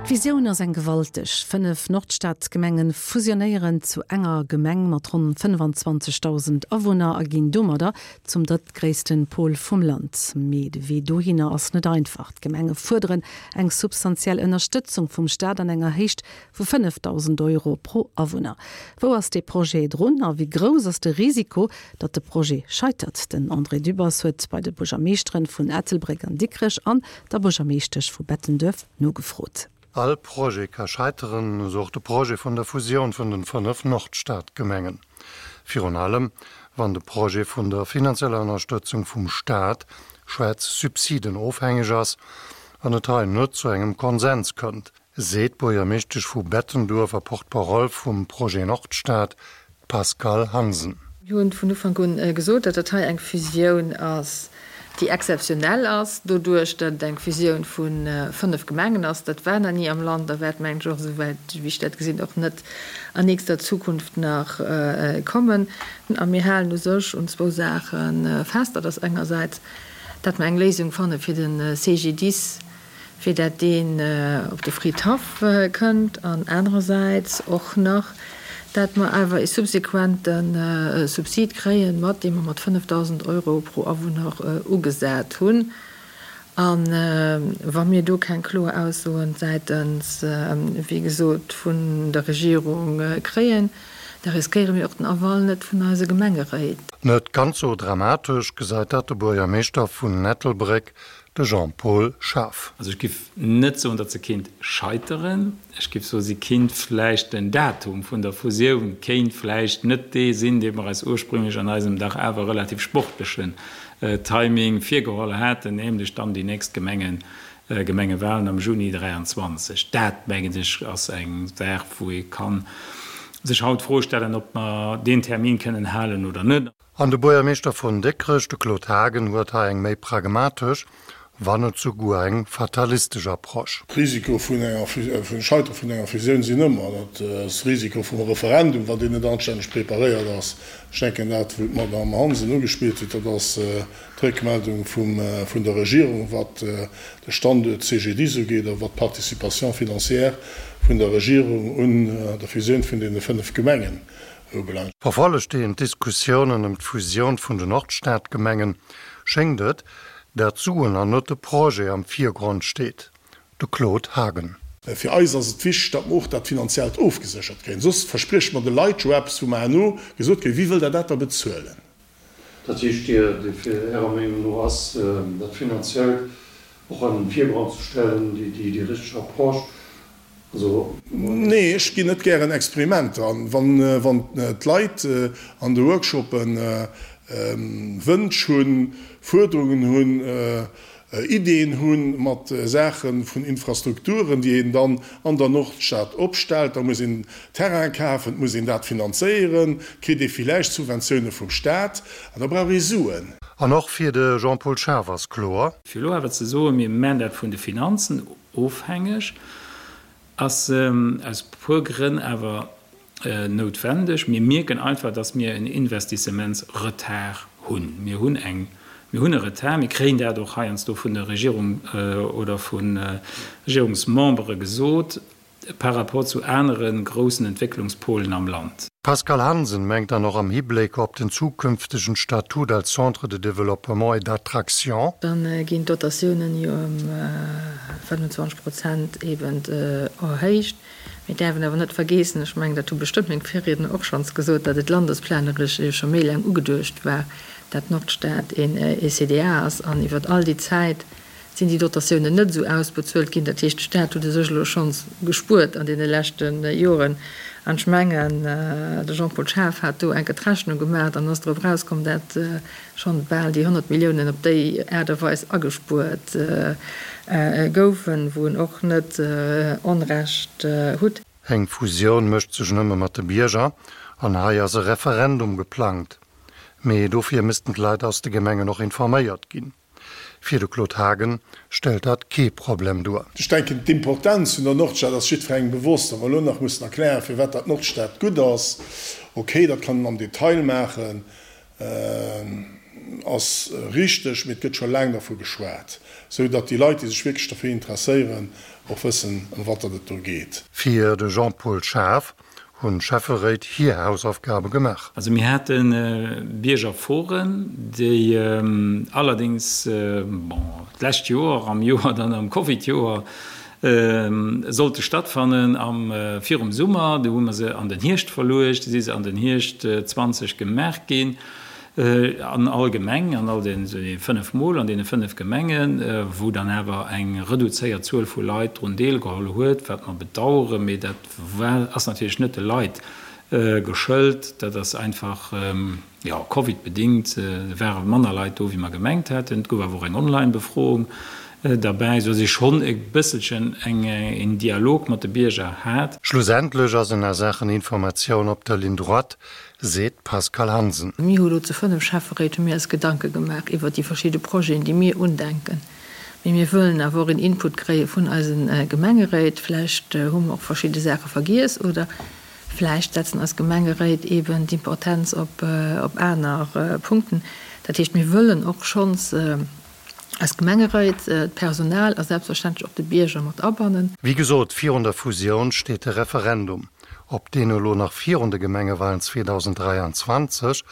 D'Visioun ass eng gewalteg, 5 Nordstadgemengen fusionéieren zu enger Gemeng mat ronn 25.000 Awunner a ginn domadder zum drëttgréissten Pol vum Land. Mee de Wee dohinner ass net einfach. D'Gemenge fuerderen eng substantiell Ënnerstëtzung vum Staat an enger Héicht vu 5.000 Euro pro Awunner. Wou ass dee Projet drun a wéi grouss ass de Risiko, datt de Projet scheitert? Den André Dübbers huet bei de Buergermeeschteren vun Ettelbréck an Dikrech an der Buergermeeschtesch vu Bettenduerf nogefrot. All Projet ka scheiteren, esou och de Projet vun der Fusioun vun den 5 Nordstadgemengen. Virun allem wann de Projet vun der finanzieller Ënnerstëtzung vum Staat, schwätz Subsiden, ofhängeg ass an et hei net zu engem Konsens kënnt, seet d'Buergermeeschtesch vu Bettenduerf a Porte-parole vum Projet Nordstad, d'Pascale Hansen. Mir hunn vun Ufank un gesot, datt dat hei eng Fusioun ass, déi exzeptionell ass, doduerch datt et eng Fusioun vu 5 Gemengen ass. Dat war nach ni am Land a wäert, mengen ech, och, esouwäit wéi ech dat gesinn, och net an nächster Zukunft nach kommen. A mir halen u sech un zwou Saache fest. Dat ass engersäits, datt mer eng Léisung fanne fir de CGDIS, fir dat deen op de Fridhaff kënnt, an anerersäits och nach, dat mer awer ee subsequente Subsid kréien, mat deem mer mat 5.000 Euro pro Awunner ugesat hunn. A wa mir do keng kloer Aussoen säitens, wéi gesot, vun der Regierung kréien, da riskéiere mir och den Aval net vun eise Gemengeréit. Net ganz sou dramatesch gesäit dat de Buergermeeschter vun Ettelbréck, De Jean-Paul Schaaf. Also ech giff net soen, datt se kéint scheiteren. Ech giff soen, si kinnt vläicht, den Datum vun der Fusioun kéint vläicht net dee sinn, dee mer eis ursprünglech an eisem dach awer relativ sportlechen Timing virgeholl haten, nämlech dann déi nächst Gemengen, Gemengewahlen am Juni 23. Dat, mengen ech, ass eng Saach, wou ee ka sech haut d'Fro stellen, ob mer deen Termin kënnen halen oder net. An de Buergermeeschter vun Dikrech, de Claude Haagen, huet hei eng méi pragmatesch, wann net souguer eng fatalistesch Approche. D'Risiko vun enger, vum Scheitere vun enger Fusioun sinn ëmmer. Dat ass de Risiko vum Referendum, wann deen net anstänneg preparéiert ass. Ech denken, dat, wou d'Madame Hansen ugespillt huet, dat ass d'Réckmeldung vum, vun der Regierung, wat de Standuert CGDIS ugeet a wat d'Participation financière vun der Regierung un der Fusioun vun deene 5 Gemengen ubelaangt. Verfollegt een d'Diskussiounen ëm d'Fusioun vun den Nordstadgemengen, schéngt et, dat d'Suen an net de Projet am Virgrond steet. De Claude Haagen. Fir eis ass et wichteg, datt mer och dat Finanziellt ofgeséchert kréien. Soss versprieche mer de Leit jo eppes, wou mer herno gesot kréien, Wie wëll der dat da bezuelen? Dat heescht, Dir, fir Ärer Meenung no ass dat Finanziellt och an den Virgrond ze stellen déi richteg Approche? Also. Nee, ech ginn net gären Experimenter an. Wann d'Leit an de Workshoppe Wënsch hunn, Fuerderungen hunn, Ideeën hu mat Saache vun Infrastrukturen, déi een dann an der Nordstad opstellt, da muss een Terrain kafen, et muss een dat finanzéieren, kritt ee villäicht Subventioune vum Staat an da brauch ee Suen. An och fir de Jean-Paul Schaaf ass kloer. Fir elo awer ze soen, mir man dat vun de Finanzen ofhängeg, ass aus puer Grënn awer noutwendeg. Mir mierken einfach, dass mir en Investissementsretard hunn. Mir hunn eng, mir hunn e Retard. Mir kréien dat och heiansdo vun der Regierung oder vu Regierungsmembere gesot par rapport zu anere groussen Entwécklungspolen am Land. D'Pascale Hansen mengt dann och am Hibléck op den zukünftegen Statut als Centre de développement et d'attraction, Da ginn d'Dotatiounen jo ëm 25 Prozent eben erhéicht. Mir däerfen awer net vergeessen, ech mengen, dat hu bestëmmt meng Virriedner och schonns gesot, datt et landesplaneresch jo scho méi laang ugeduecht war, dat d'Nordstad een ECDA ass an iwwert all déi Zäit sinn déi Dotatiounen net esou ausbezuelt ginn. Dat heescht, de Staat huet u sech elo schonns gespuert an deene leschte Joren. An ech mengen, de Jean-Paul Schaaf hat do enke d'Rechnung gemaach an ass drop erauskomm, dat schonn bal déi 100 Milliounen op déi Aart a Weis agespuert goufen, wou en och net Onrecht hutt. Eng Fusioun mécht sech nëmme mat de Bierger an hei ass e Referendum geplangt. Mee dofir missten d'Leit aus de Gemengen och informéiert ginn. Fir de Claude Haagen stellt dat kee Problem duer. Ech denken, d'Importenz vun der Nordstad ass jiddwerengem bewosst. Wa mer elo nach mussen erklären, firwat dat d'Nordstad gutt ass, okay, dat kann een am Detail maachen. ass richteg, mee et gëtt scho laang dervu geschwat, sou datt déi Leit, déi sech wierklech derfir interesséieren, och wëssen, ëm wat datt et do geet. Fir de Jean-Paul Schaaf hunn d'Schäfferéit hir Hausaufgabe gemaach. Also mir hate Biergerforen, déi allerdéngs, bon, d'lescht Joer, am Joer dann, am Covidjoer, sollte stattfannen am, virum Summer. Du hu mer se an den Hierscht verluecht, du si se an den Hierscht 20 gemaach ginn, an all Gemeng, an all den 5 Mol an deene 5 Gemengen, wou dann awer eng reduzéiert Zuel vu Leit drun deelgeholl huet, wat mer bedauern, mee dat war, ass natierlech net de Leit geschëlt, dat ass einfach, jo, Covid-bedingt, et ware manner Leit do, wéi mer gemengt haten. Et gouf awer och eng Online-Befroung derbäi, esou datt ee schonn e bësselchen eng, een Dialog mat de Bierger hat. Schlussendlech ass en a Saachen Informatioun op der Ligne droite, seet d'Pascale Hansen. Mir hu lo zu 5 Schäfferéit hu mir eis Gedanke gemaach iwwert déi verschidde Projeten, déi mir undenken. Mee mir wëllen awer och een Input kréie vun eise Gemengeréit. Vläicht hu mer och verschidde Saache vergiess oder vläicht setzen eis Gemengeréit eeben d'Importenz op aner Punkten. Dat heescht, mir wëllen och schonns eis Gemengeréit, d'Personal a selbstverständlech och de Bierger mat abannen. Wéi gesot, virun der Fusioun steet de Referendum. Ob deen elo nach virun de Gemengewalen 2023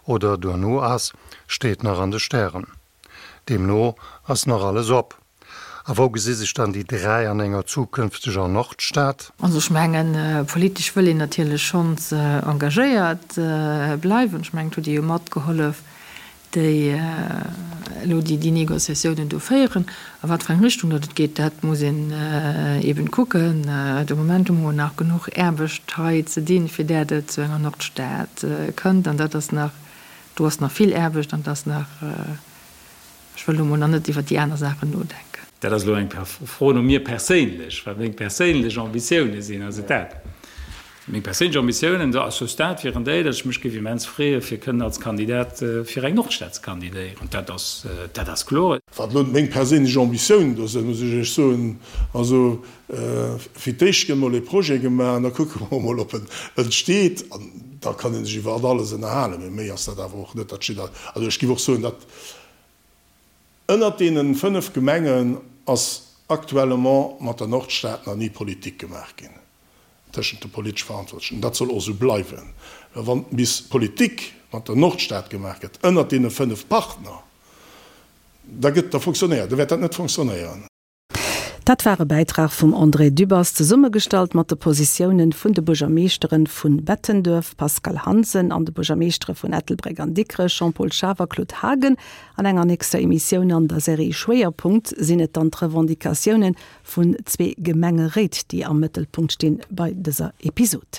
oder duerno ass, steet nach an de Stären. Deemno ass nach alles op. A wou gesi sech dann déi 3 an enger zukünfteger Nordstad? Also ech mengen, politesch wëll een natierlech schonns engagéiert bleiwen. Ech mengen, et hutt Dir jo matgehollef, déi elo déi Négociatiounen do féieren. A wat fir eng Richtung datt et geet, dat muss een eben kucken. De Moment hu mer nach genuch Aarbecht hei ze dinn, fir dat et zu enger Nordstad kënnt. An dat ass nach Do ass nach vill Aarbecht an et ass nach, ech wëll elo mol nach net iwwert déi aner Saachen nodenken. Dat ass elo eng Fro no mir perséinlech, wat meng perséinlech Ambitioune sinn. Ass et dat? Meng perséinlech Ambitiounen à ce stade wieren déi, datt ech mech géif immens freeë fir kënnen als Kandidat fir eng Nordstad ze kandidéieren. Dat ass, dat ass kloer. Wat elo meng perséinlech Ambitiounen do sinn, muss ech Iech soen, also Fir d'éischt gëtt mol ee Projet gemaach an da kucke mer mol, ob en entsteet. An da kann ee sech iwwer alles ënnerhalen. Mee méi ass dat awer och net. Dat steet a, also ech géif och soen, datt ënnert deene 5 Gemengen ass actuellement mat der Nordstad nach ni Politik gemaach ginn tëschent de politesch Verantwortlechen. Dat soll och esou bleiwen. Well wann bis Politik mat der Nordstad gemaach gëtt ënnert deene 5 Partner, da gëtt, da fonctionnéiert, da wäert dat net fonctionnéieren. Dat war e Bäitrag vum André Dübbers, zesummegestallt mat de Positiounen vun de Buergermeeschteren vun Bettenduerf, Pascale Hansen, an de Buergermeeschtere vun Ettelbréck an Dikrech, Jean-Paul Schaaf a Claude Haagen. An enger nächster Emissioun an der Serie Schwéierpunkt sinn et dann d'Revendicatiounen vun zwee Gemengeréit, déi am Mëttelpunkt stinn bei dëser Episod.